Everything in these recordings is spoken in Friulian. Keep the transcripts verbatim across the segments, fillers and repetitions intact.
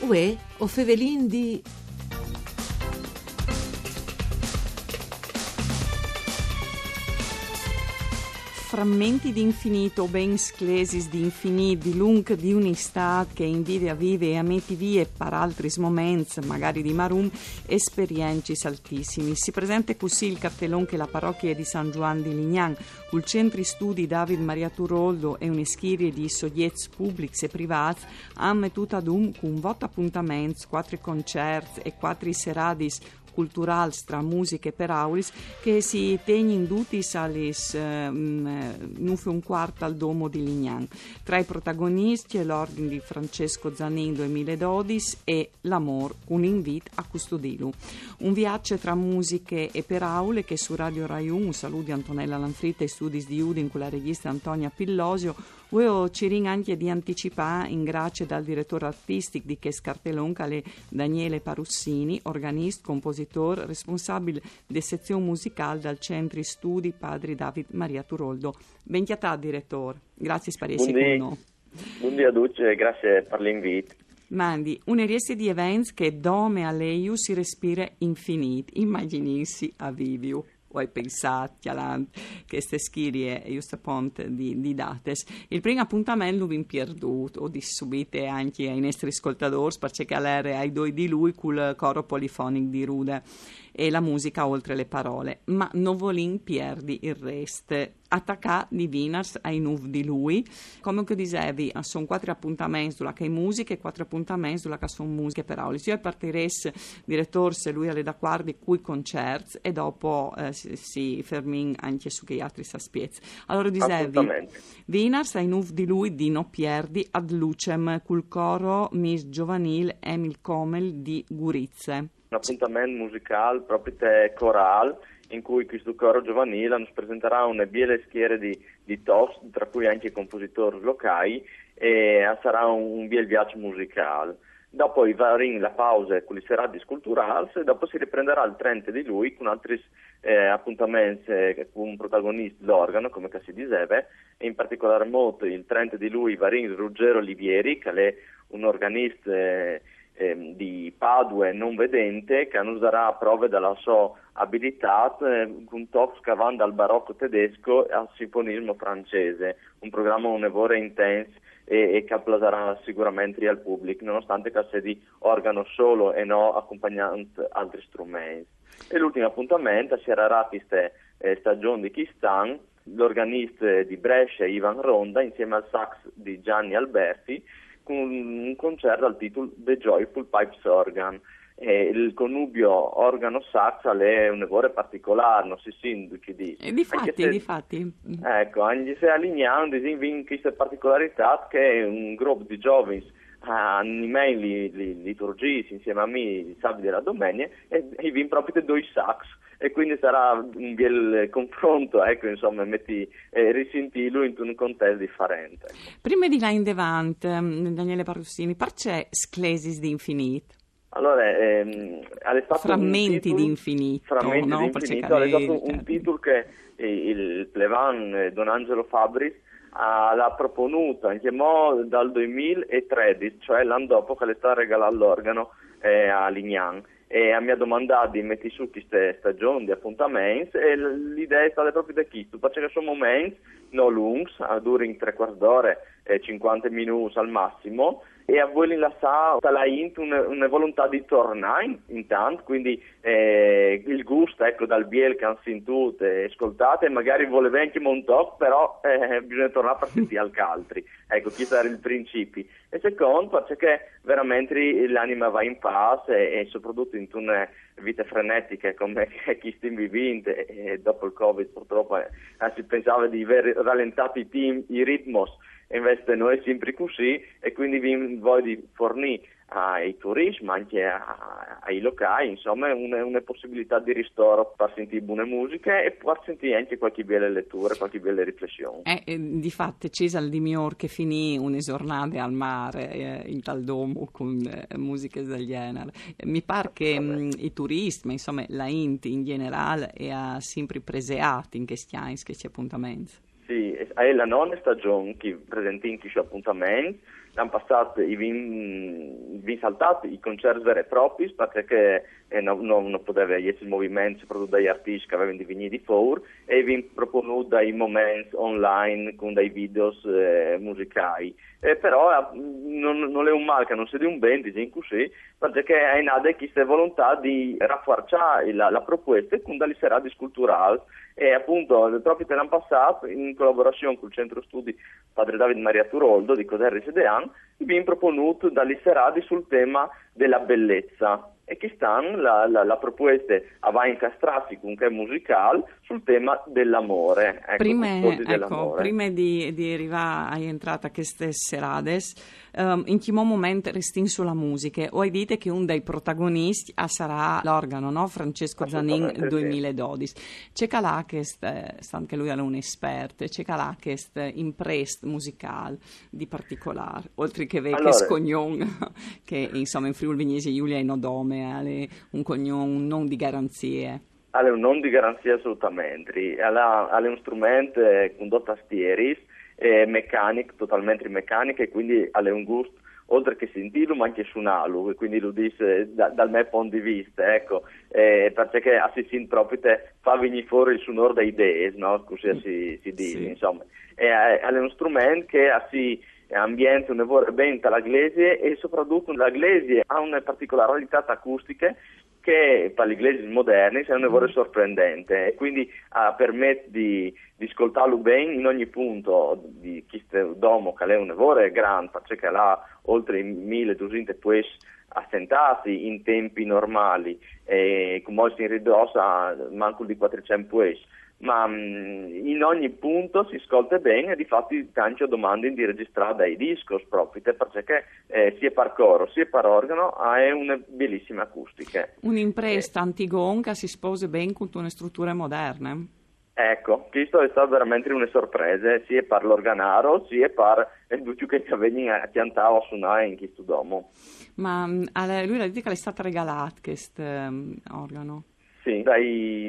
Uè, o fevelin di... Frammenti di infinito, ben sclesis di infinit, di lunc di un'istât che e invide a vivi e a meti vie par altris moments, magari di marum, esperiencis altissimis. Si presente cussì il cartelon che la parochie di San Zuan di Lignan, cul Centri Studi David Maria Turoldo e une schirie di sogjets publics e privâts, a àn metût adun cun vot apuntaments, cuatri concerts e cuatri seradis culturâls tra musiche e peraulis che si tegnin dutis a lis, eh, mm, nûf e un cuart al Domo di Lignan. Tra i protagoniscj, l'orghen di Francesco Zanin doi mil e dodis e l'amôr cun invît a custodilu. Un viaç tra musiche e peraule che su Radio Rai Unu, un salût di Antonella Lanfritta, i studis di Udin cu la regjiste Antonia Pillosio, vuê o cirìn ancje di anticipâ in gracie dal diretôr artistic di chest cartelon, che al è Daniele Parussini, organist, compositôr, responsabil de sezion musicâl dal Centri Studi Padri David Maria Turoldo. Ben cjatât, diretôr. Graciis par jessi cun nô. Bundì a ducj, graciis par l'invît. Mandi, une rieste di events che dome a Leiu si respire infinît, imagjinìnsi a viviu. O ai pensât, cjalant cheste schirie, just apont, di, di datis. Il prin apontament lu vin pierdût, o dîs subite ancje ai nestris scoltadôrs, parcè che al jere ai doi di Lui cul Coro Polifonic di Rude e la musiche oltri lis parolis. Ma no volìn pierdi il rest. A tacâ di vinars ai nûf di Lui, come che o disevi, a son cuatri apontaments dulà che e je musiche e cuatri apontaments dulà che a son musiche e peraulis. Jo o partirès, diretôr, se Lui al è dacuardi, cui concerts e dopo, eh, si, si fermìn ancje su chei altris aspiets. Alore, o disevi, vinars ai nûf di Lui di no pierdi Ad Lucem cul coro Mist Giovanîl Emil Comel di Gurize. Un apontament musicâl propit corâl, in cui chest coro giovanîl nus presentarà une biele schiere di, di tocs, tra cui ancje compositôrs locâi, e al sarà un, un biel viaç musicâl. Dopo o varìn la pause cu lis seradis culturâls e dopo si riprendarà il trente di Lui cun altris, eh, apontaments, eh, cun protagonist l'organ, come che si diseve, e in particolâr mût il trente di Lui o varìn Ruggero Livieri, che al è un organist, eh, ehm, di Padue, non vedente, che nus darà prove de sô abilitât, eh, cun tocs che a van dal baroc tedesc al sinfonism francês, un programe une vore intens e, e che al plasarà sigurementri al public, nonostant che al sedi organ sôl e no acompagnant altris struments. E l'ultin apontament al sierarà cheste, eh, stagjon di chest an, l'organist di Brescia Ivan Ronda insieme al sax di Gianni Alberti, cun un concert dal titul The Joyful Pipes Organ. E il connubio organ-sax al è une vore particolâr, no si sint ducj i dîs. E difati, ancje se, difati. Eco, ancje se a Lignan, disìn, o vin cheste particolaritât che un grup di zovins, eh, animìn lis, lis liturgjiis insieme a mi il sabide e la domenie, e, e o vin propit doi sax, e cuindi al sarà un biel confront, eco, insome, meti, eh, risintîlu intun contest diferent. Prime di lâ indevant, mm, Daniele Parussini, parcè Sclesis di infinît? Alore, ehm, al è stât un titul, Frammenti di infinît, Frammenti di infinît, al è stât un titul che, eh, il plevan, eh, don Angelo Fabris, al à proponût ancjemò dal doi mil e tredis, cioè l'an dopo che al è stât regalât l'organ, eh, a Lignan. E mi à domandât di meti sù cheste stagjon di apontaments, e l-, la idee e je stade propit cheste, parcè che a son moments no luncs, a durin trê cuarts d'ore, eh, cincuante minûts al massim, e a vuelin lassâ la int une, une volontât di tornâ in-, intant, cuindi, eh, il gust, eco, dal biel che a àn sintût e scoltât, e magari volevin ancjemò un toc, però, eh, bisugne tornâ par sintî alc altri. Eco, chest al jere il principi. E secont, parcè che verementri l'anime e va in pâs e, e soprattut intune vite frenetiche come che cheste o vivìn, e, e dopo il Covid purtrop, eh, si pensave di vê ralentât i tim-, i ritmos, e invezit no è simpri cussì, e cuindi o vin voie di fornî ai turîts, ma ancje a, ai locâi, insome, une, une pussibilitât di ristôr par sintî bune musiche e par sintî ancje cualchi biele leture, cualchi biele riflession. Eh, eh, difat, ce isal di miôr che finî une zornade al mâr, eh, intal domo cun, eh, musiche dal gjenar. Mi pâr che, mm, i turîts, ma insome la int in gjenerâl, e à simpri preseât in chescj agns chescj apontaments. Sì, e, e je la none stagjon che o presentìn chescj apontaments, l'an passât i vin, vin saltât i concerts veri e propris, parcè che eh, no, no, no podeve jessi il moviment, soprattutto dai artisti che avevano di venire di fora, e i vin proponût dai moments online con dai videos eh, musicali. Eh, però eh, non, non è un mal che non sia di un ben, disìn così, perché è nata questa volontà di rafforzare la, la proposta con delle serate culturali. E appunto, proprio l'an passât, in collaborazione col Centro Studi Padre David Maria Turoldo di Coderri Sedean, i vin proponût delle serate sul tema della bellezza. E quest'an la, la, la proposta a va incastrarsi con che musicale sul tema dell'amore. Ecco, prima, custodi dell'amore. Prima di, di arrivare a entrata a queste serades, um, in chi moment restìn su la musica, o hai detto che un dei protagonisti sarà l'organo, no? Francesco Zanin duemiladodici. C'è calà che, stant che lui è un esperto, c'è calà che imprest musicale di particolare, oltre che vecchio allora, scognon, che insomma in Friuli Vignesie Julia è un nome, un cognon, un non di garanzie. Al è un non di garanzia assolutamente. Al è un strumento eh, con due tastieris, eh, meccanic, totalmente meccanic, e quindi al è un gusto oltre che sentirlo, ma anche suonarlo, e quindi lo dice da, dal mio punto di vista, ecco, eh, perché si sente proprio te fa venire fuori il suonore dei idee, no? Così si, si dice, sì. Insomma. E eh, al è un strumento che si ambienta un lavoro ben dalla iglesia e soprattutto la iglesia ha una particolarità acustica che per le iglesie moderne è un lavoro sorprendente e quindi ha permesso di, di ascoltarlo bene in ogni punto di questo domo che è un lavoro grande perché ha oltre milleduecento poesie assentate in tempi normali e come si ridossa manco di quattrocento poesie ma in ogni punto si ascolta bene e difatti tanti domandano di registrare dai dischi proprio perché eh, sia per coro sia per organo ha una bellissima acustica. Un'impresta eh. antigonca si sposa bene con una struttura moderna. Ecco, questo è stato veramente una sorpresa, sia per l'organaro, sia per tutti che venivano a piantare o a suonare in questo domo. Ma lui l'ha detto che le è stato regalato questo um, organo? Sì, dai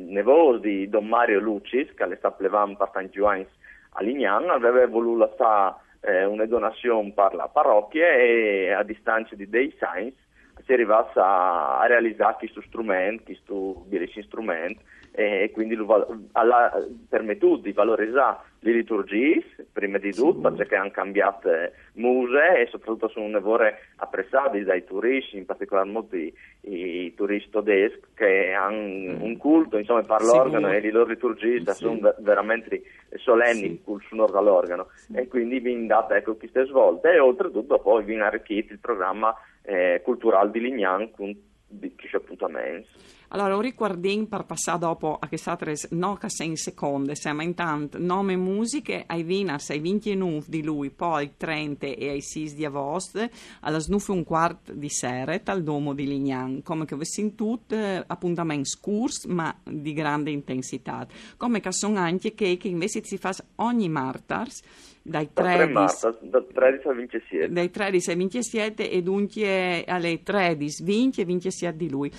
nevoti di Don Mario Lucis, che è stato plevan per tanti anni a Lignan, aveva voluto lasciare eh, una donazione per la parrocchia e a distanza di dei anni si è arrivati a, a realizzare questo strumento, questo bellissimo strumento, e quindi ha permesso di valorizzare le liturgie, prima di tutto, sì. Perché hanno cambiato muse e soprattutto sono un lavoro apprezzato dai turisti, in particolar modo i, i turisti tedeschi che hanno un culto, insomma, per l'organo sì, e le loro liturgie sì. Sono veramente solenni sì. Col suonare dall'organo sì. E quindi vi date ecco queste svolte e oltretutto poi vi arricchite il programma eh, culturale di Lignan con di, di appuntamenti. Allora, un riguardin per passare dopo a queste altre no che sei in seconde, siamo intanto nome musiche ai Vinas ai venti e nove di lui, poi ai trenta e ai sei di agosto, alle nove e un quarto di sera, al Domo di Lignan. Come che vi sentite, appuntamenti scurti, ma di grande intensità. Come che sono anche che, che invece si fa ogni martars, dai tredici, da tredici al vintisette. Dai tredici al vintisette e dunque alle tredici, vinti e vintisette di lui.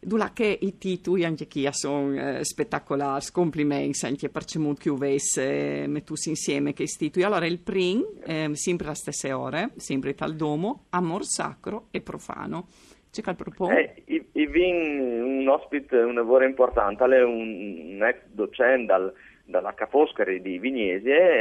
Dulà che i titoli anche qui sono eh, spettacolari, complimenti anche per ciò che avesse eh, messo insieme che i titoli. Allora il prim, eh, sempre alle stesse ore, sempre tal domo, amor sacro e profano. C'è che propone? Eh, i, i vin un ospite, un lavoro importante, è un, un ex docente dal, dalla Ca' Foscari di Vignesie,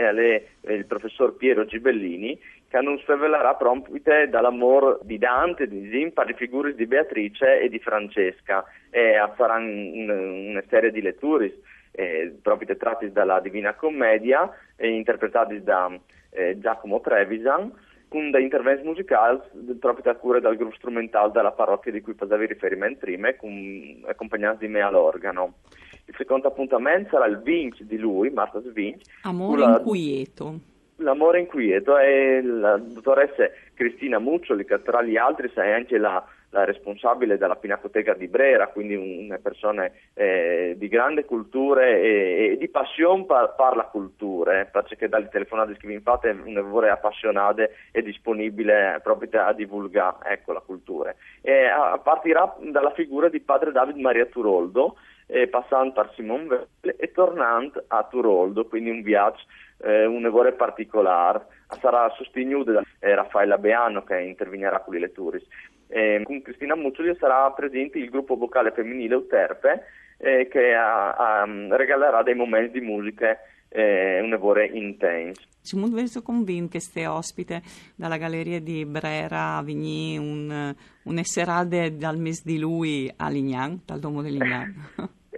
è il professor Piero Gibellini, che non svelarà proprio dall'amore di Dante, di Zimpa, di figure di Beatrice e di Francesca, e faranno un, una serie di letture eh, proprio tratte dalla Divina Commedia, eh, interpretate da eh, Giacomo Trevisan, con dei interventi musicali proprio a cura del gruppo strumentale della parrocchia di cui facevi riferimento prima, con, accompagnati di me all'organo. Il secondo appuntamento sarà il vinci di lui, Marta Svinci. Amore la... inquieto. L'amore inquieto è la dottoressa Cristina Muccioli, che tra gli altri è anche la, la responsabile della Pinacoteca di Brera, quindi una persona eh, di grande cultura e, e di passione per, per la cultura, eh, perché dalle telefonate che vi fate è una voce appassionata e disponibile proprio a divulgare ecco, la cultura. E a, partirà dalla figura di padre David Maria Turoldo, e passant par Simon Veil e tornant a Turoldo, quindi un viaç eh, une vore particolâr. Sarà sostignude da eh, Raffaella Beano che intervignarà cu li leturis. E cun Cristina Muccioli sarà presente il gruppo vocale femminile Euterpe eh, che a, a, regalerà dei momenti di musiche eh, une vore intens. Simon Veil, soi convint che ste ospite da la galeria di Brera a vignî un, une serade dal mês di Lui a Lignan, dal Domo de Lignan.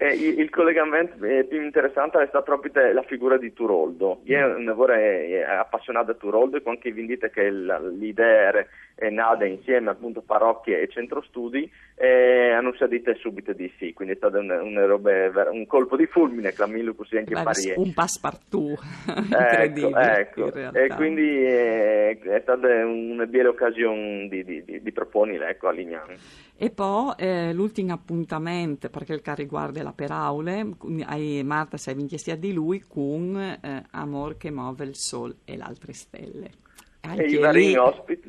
Eh, il, il collegament eh, plui interessant al è stât propit la figure di Turoldo. Jo mm. une vore eh, apassionade da Turoldo e cuant che o vin dit che la, la idee e je nade insieme appunto parochie e centro studi e a nus à dite subite di sì, quindi al è stât un, un, robe, un colpo di fulmine, clamìnlu cussì ancje par jê. Un passepartout, incredibile. Ecco, ecco. E quindi eh, al è stât une biele ocasion di, di, di, di proponile, ecco, a Lignan. E po eh, l'ultin apontament, par chel che al rivuarde la peraule, ai martedis ai vincjesiet di Lui cun eh, Amor che move il sol e l'altre stelle. Ancje e li, ospit,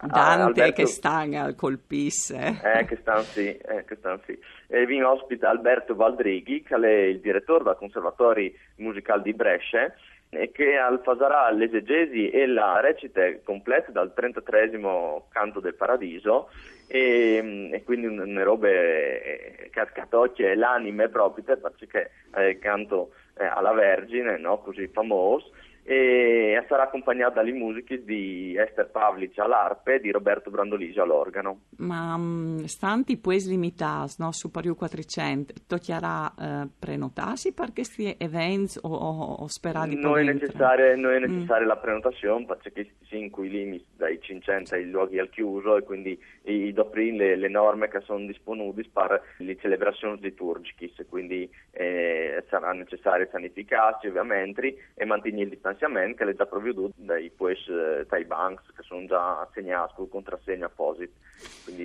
Dante Alberto... che stan al colpis. Eh, che stan sì, eh, che stan sì. E o vin ospit Alberto Valdrighi, che al è il diretôr dal Conservatori Musicâl di Bresce, e che al fasarà l'esegesi e la recite complete dal trentatreesimo Canto del Paradiso, e, e quindi une robe che, che al tocje l'anime propit, parcè che eh, canto eh, a la Vergine, no? Cussì famôs, e al sarà acompagnât da li musichis di Ester Pavlic a l'arpe e di Roberto Brandolisi a l'organo. Ma mm, stant i puescj limitâts, no? Superiôr cuatricent, tocjarà eh, prenotâsi par chescj events o, o, o sperâ di... No je necessare, no je necessare mm. la prenotazion, parcè che o sin cui limits dai cinccent ai luoghi al chiuso e quindi o doprìn le, le norme che a son disponudis par li celebrazions litûrgjichis, quindi eh, al sarà necessari sanificâsi ovviamentri e mantignî il distanziament che al è za previodût dai puescj eh, tai bancs che a son za assignâts cul contrassegn aposit.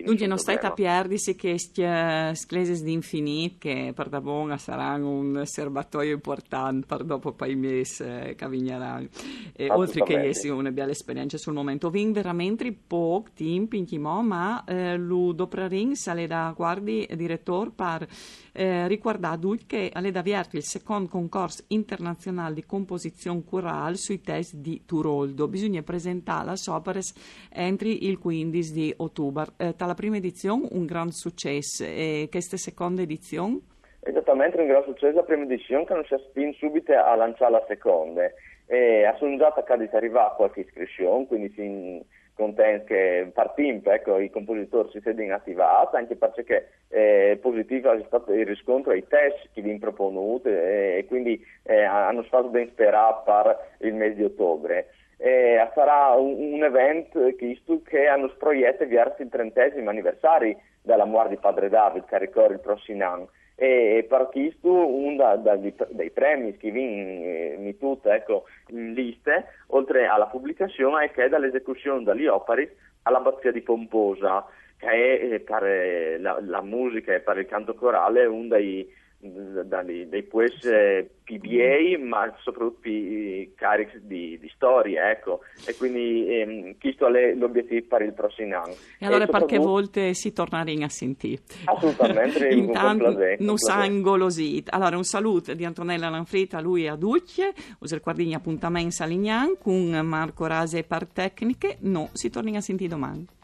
Duncje no stait a pierdisi chescj eh, sclesis di Infinit che pardabon a saran un serbatoi impuartant par dopo pai mês eh, che a vignaran. E oltri che jessi une biele esperience sul moment, o vin verementri pôc timp incjimò, ma eh, lu doprarìn, se al è dacuardi, diretôr, par eh, ricuardâ a ducj che al è da viert il secont concors internazionâl di composizion corâl sui tescj di Turoldo. Bisugne presentâ las operis entri il cuindis di Otubar. Eh, ta la prime edizion un grant sucès, e cheste seconde edizion? Esatamentri, un grant sucès la prime edizion, che a nus à spint subite a lançâ la seconde. E a son za tacadis a rivâ cualchi iscrizion, quindi o sin contents che par timp, ecco, i compositôrs si sedin ativâts, ancje parcè che eh, positîf al è stât il riscontri ai tescj che o vin proponût eh, e quindi eh, a nus fâs ben sperâ par il mês di Otubar. E al sarà un, un event, chest, che a nus proiete viers il trentesim aniversari da la muart di Padre David, che al ricore il prossim an. E, e par chest un da, da, dai premis che o vin eh, metût, ecco, in liste, oltri a la publicazion, al è chel da la esecuzion da li operis a l'Abazia di Pomposa, che al è eh, par eh, la, la musiche e par il cant corâl un dai, dai, dai puescj eh, plui biei, ma sopratut plui carics di, di storie, ecco. E quindi ehm, chest al è l'obietîf par il prossim an. E alore par chê volte si tornarìn a sintî. Assolutamentri, cun plasê. Nus àn golosît. Alore un salût di Antonella Lanfrita a lui e a ducj, us ricuardìn i apontaments a Lignan cun Marco Rase par tecniche, nô si tornìn a sintî doman.